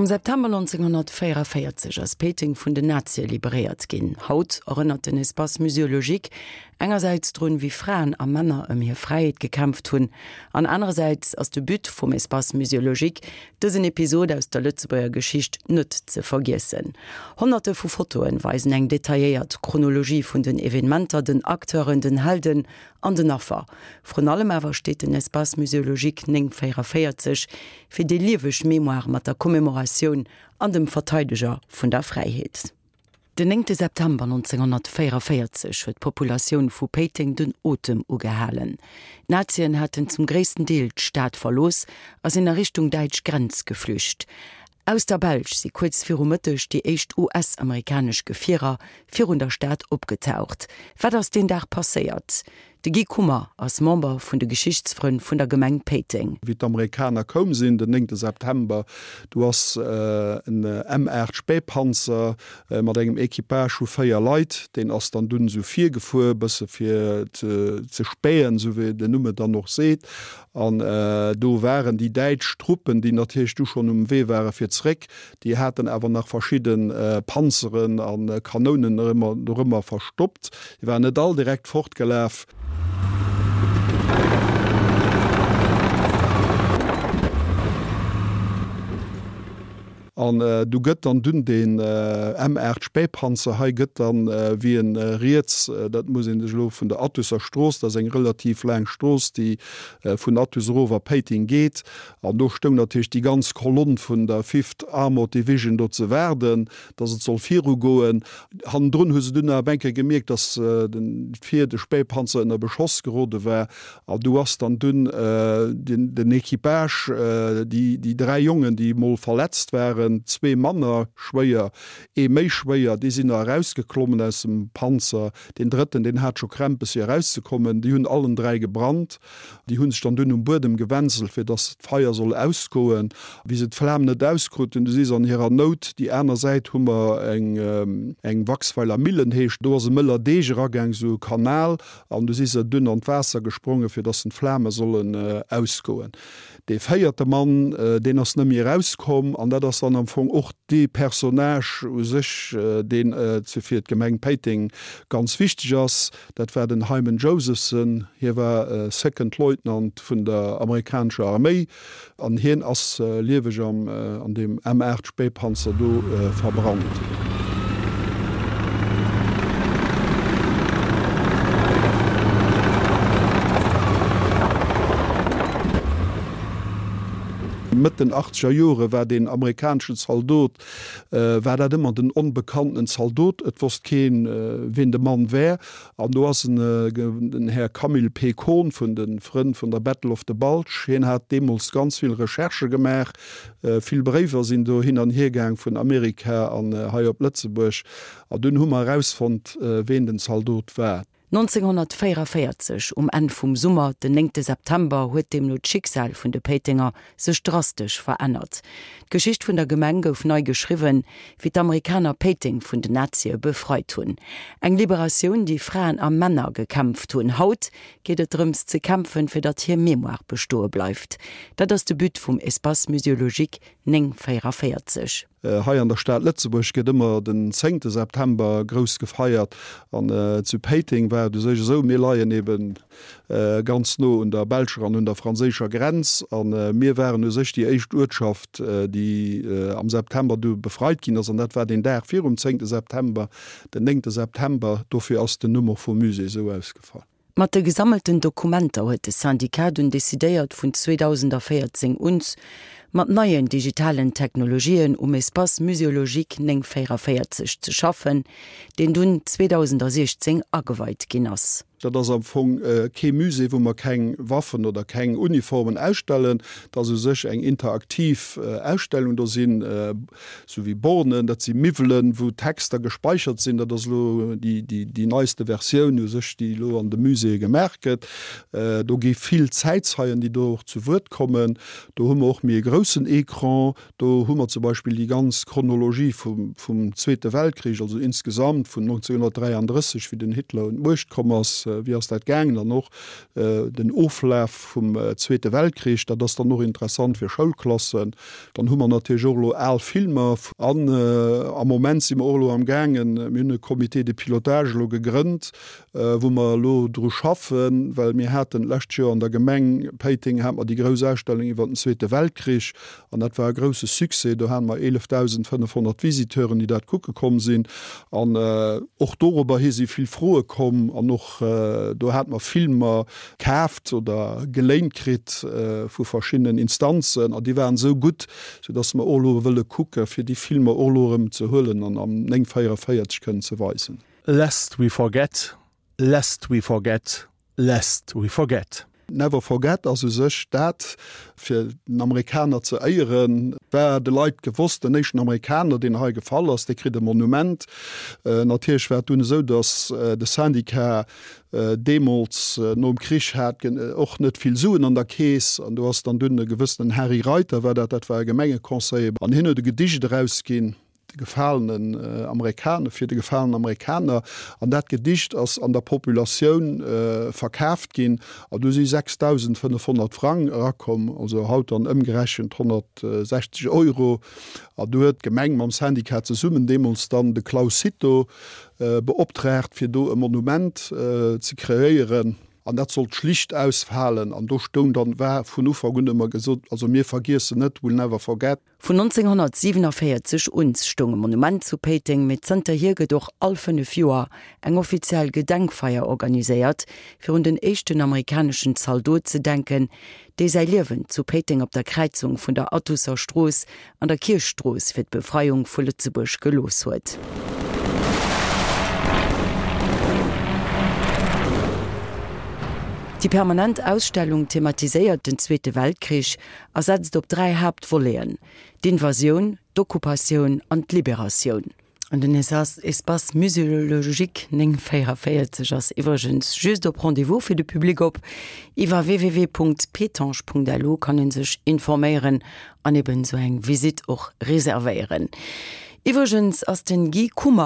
Am September 1944 ass Péiteng vun den Nazie liberéiert ginn. Haut erënnert den Espace muséologique engersäits drun, wéi Fraen a Männer ëm hir Fräiheet gekämpft hunn, an anerersäits ass de But vum Espace muséologique, dësen Episod aus der Lëtzebuerger Geschicht net ze vergiessen. Honnerte vu Fotoen weisen eng detailléiert Chronologie vun den Evenementer, den Acteuren, den Helden an den Affer. Vrun allem awer steet den Espace muséologique 944 fir déi lieweg Mémoire mat der Commémoratioun an dem Verteideger vun der Fräiheet. Den néngte September 1944 huet d'Populatioun vu Péiteng den Otem ugehalen. D'Nazien haten zum gréissten Deel d'Stad verlooss a sinn a Richtung däitsch Grenz geflücht. Aus der Belsch si kuerz viru Mëtteg déi éischt US-amerikanesch Gefierer virun der Stad opgetaucht. Wat ass deen Dag passéiert? De Guy Kummer ass Member vun de Geschichtsfrënn vun der Gemeng Péiteng. Wéi d'Amerikaner koum sinn, den néngte September, du ass en M8 Spähpanzer mat engem Equipage vu 4 Leit, deen ass dann dunn esou virgefuer, bësse fir ze spähen, esou wéi den Numm et dann och seet. An do waren déi däitsch Truppen, déi natierlech du schonn um Wee ware fir zréck, déi haten awer nach verschidde Panzeren a Kanounen dorëmmer verstoppt. Déi waren net all direkt fortgelaf. An du gëtt dann dunn deen M8 Spähpanzer hei gëtt dann, wéi en riets, dat muss ee sech elo vun der Athuser Strooss, dat ass eng relativ laang Strooss, déi vun Athus erof a Péiteng geet, an do stoung natierlech déi ganz Kolonn vun der Fifth Armored Division do ze waarden, dass et soll virugoen. Hannendrun hu se dunn awer eng Kéier gemierkt, dass vir de Spähpanzer ënner Beschoss gerode war An do ass dann dunn den Equipage, déi 3 Jongen, déi emol verletzt waren, zwee manner schwéier, ee méi schwéier, déi sinn nach erausgeklommen aus dem Panzer. Deen drëtten, deen hat scho Krämpes fir erauszekommen. Déi hunn allen 3 gebrannt. Déi hu sech dann dunn um Buedem gewenselt, fir dass d'Feier soll ausgoen. Wéi se d'Flam net auskruten, du si se an hirer Nout, déi aner Säit hu mer eng Waxweiler Millen heescht, do ass e mëller Deeg eragaang, esou e Kanal, An du si se dunn an d'Waasser gesprongen, fir dass d'Flame sollen ausgoen. Dee véierte Mann, deen ass net méi erauskomm. An dat ass dann am Fong och dee Personnage u sech, deen fir d'Gemeng Péiteng ganz wichteg ass. Dat war den Hyman Josephson. Hie war Second Leutnant vun der amerikanescher Arméi. An hien ass lieweg an deem M8 Spähpanzer do verbrannt. Mëtt den achtzeger Jore war deen amerikaneschen Zaldot, war dat ëmmer den onbekanntenen Zaldot. Et wosst keen, wien de Mann wär. An do ass en, den Här Camille P. Kohn vun de Frënn vun der Battle of the Bulge, hien hat deemools ganz vill Recherchë gemaach, vill Bréiwer sinn do hin an hier gaang vun Amerika an hei op Lëtzebuerg, an dunn hu mer erausfonnt, ween den Zaldot war. 1944, um Enn vum Summer, den néngte September, huet deemno d'Schicksal vun de Péitenger sech drastesch verännert. D'Geschicht vun der Gemeng gouf nei geschriwwen, wéi d'Amerikaner Péiteng vun den Nazie befreit hunn. Eng Liberatioun, déi Fraen a Männer gekämpft hunn. Haut geet et drëms ze kämpfen, fir datt hir Mémoire bestoe bleift. Dat ass de But vum Espace muséologique 944. Hei an der Stad Lëtzebuerg gëtt ëmmer den zéngte September grouss gefeiert an zu Péiteng war et u sech esou, mir leien eben ganz no un der belscher an un der franséischer Grenz a mir waren u sech déi éischt Uertschaft, déi am September du befreit ginn ass an dat war deen Dag virum zéngte September, den néngte September. Dofir ass den Numm och vum Musée esou ausgefall. Mat de gesammelten Dokumenter huet de Syndicat dunn decidéiert vun 2014 uns mat neien digitalen Technologien um Espace muséologique 944 ze schaffen, deen dunn 2016 ageweit ginn ass. Dat ass am Fong kee Musée, wou mer keng Waffen oder keng Uniformen ausstellen. Dat ass u sech eng interaktiv Ausstellung. Do sinn Sou wéi Bornen, dat si Miwwelen, wou Texter gespeichert sinn. Dat ass elo déi neiste Versioun u sech, déi elo an de Muséeë gemaach gëtt. Do gi vill Zäitzeien, déi do och zu Wuert kommen. Do hu mer och méi e grousse. groussen Ecran, do hu mer zum Beispill déi ganz Chronologie vum vum Zweete Weltkrich, also insgesamt vun 1933, wéi den Hitler un d'Muecht komm ass, wéi ass dat gaangen, an och den Oflaf vum Zweete Weltkrich. Dat ass dann och interessant fir Schoulklassen. Dann hu mer natierlech och elo al Filmer. An am Moment si mer och elo am gaangen, mir hunn e Comité de pilotage elo gegrënnt, wou mer elo dru schaffen, well mir haten d'lescht Joer an der Gemeng Péiteng hate mer déi grouss Ausstellung iwwert den Zweete Weltkrich an dat war e grouse Succès. Do hate mer 11.500 Visiteuren, déi dat kucke komm sinn an och dorobber hi si vill Froe komm an och do hate mer Filmer kaaft oder geléint kritt vu verschiddenen Instanzen an déi waren esou gutt, soudass mer och elo wëlle kucke fir déi Filmer och elo erëm ze huelen an am 944 kënnen ze weisen. Lest we forget, lest we forget, lest we forget. Never forget ass u sech dat, fir den Amerikaner ze éieren. War de Leit gewosst, den éischten Amerikaner, deen hei gefall ass, dee kritt e Monument. Natierlech war et dunn esou, datt de Syndicat deemools nom Krich hat och net vill Suen an der Keess. An do ass dann dunn e gewëssenen Harry Reiter war dat, dat war e Gemengeconseiller, an hien huet e Gedicht erausginn, De gefalenen Amerikaner, fir de gefalenen Amerikaner. An dat Gedicht ass an der Populatioun verkaaft ginn an do si 6.500 Frang erakomm, also haut dann ëmgerechent 160 Euro. An do huet d'Gemeng mam Syndicat zesummen deemools dann de Claus Cito beoptraagt, fir do e Monument ze kreéieren. An dat sollt schlicht ausfalen. An do stoung dann, war vun Ufank un ëmmer gesot, also mir vergiessen net, we'll never forget. Vun 1947 un stoung e Monument zu Péiteng, mee zënterhier gëtt och all 5 Joer eng offiziell Gedenkfeier organiséiert, fir un den éischten amerikaneschen Zaldot ze denken, dee säi Liewen zu Péiteng op der Kräizung vun der Attusser Strooss an der Kierchstrooss fir d'Befreiung vu Lëtzebuerg gelooss huet. Déi permanent Ausstellung thematiséiert den Zweete Weltkrich a setzt op 3 Haaptvoleten, d'Invasioun, d'Okkupatioun an d'Liberatioun. An den Espace Muséologique 944 ass iwwregens just op Rendez-vous fir de Public op. Iwwer www.petange.lu kann ee sech informéieren an eben esou eng Visitt och reservéieren. Iwwregens ass den Guy Kummer.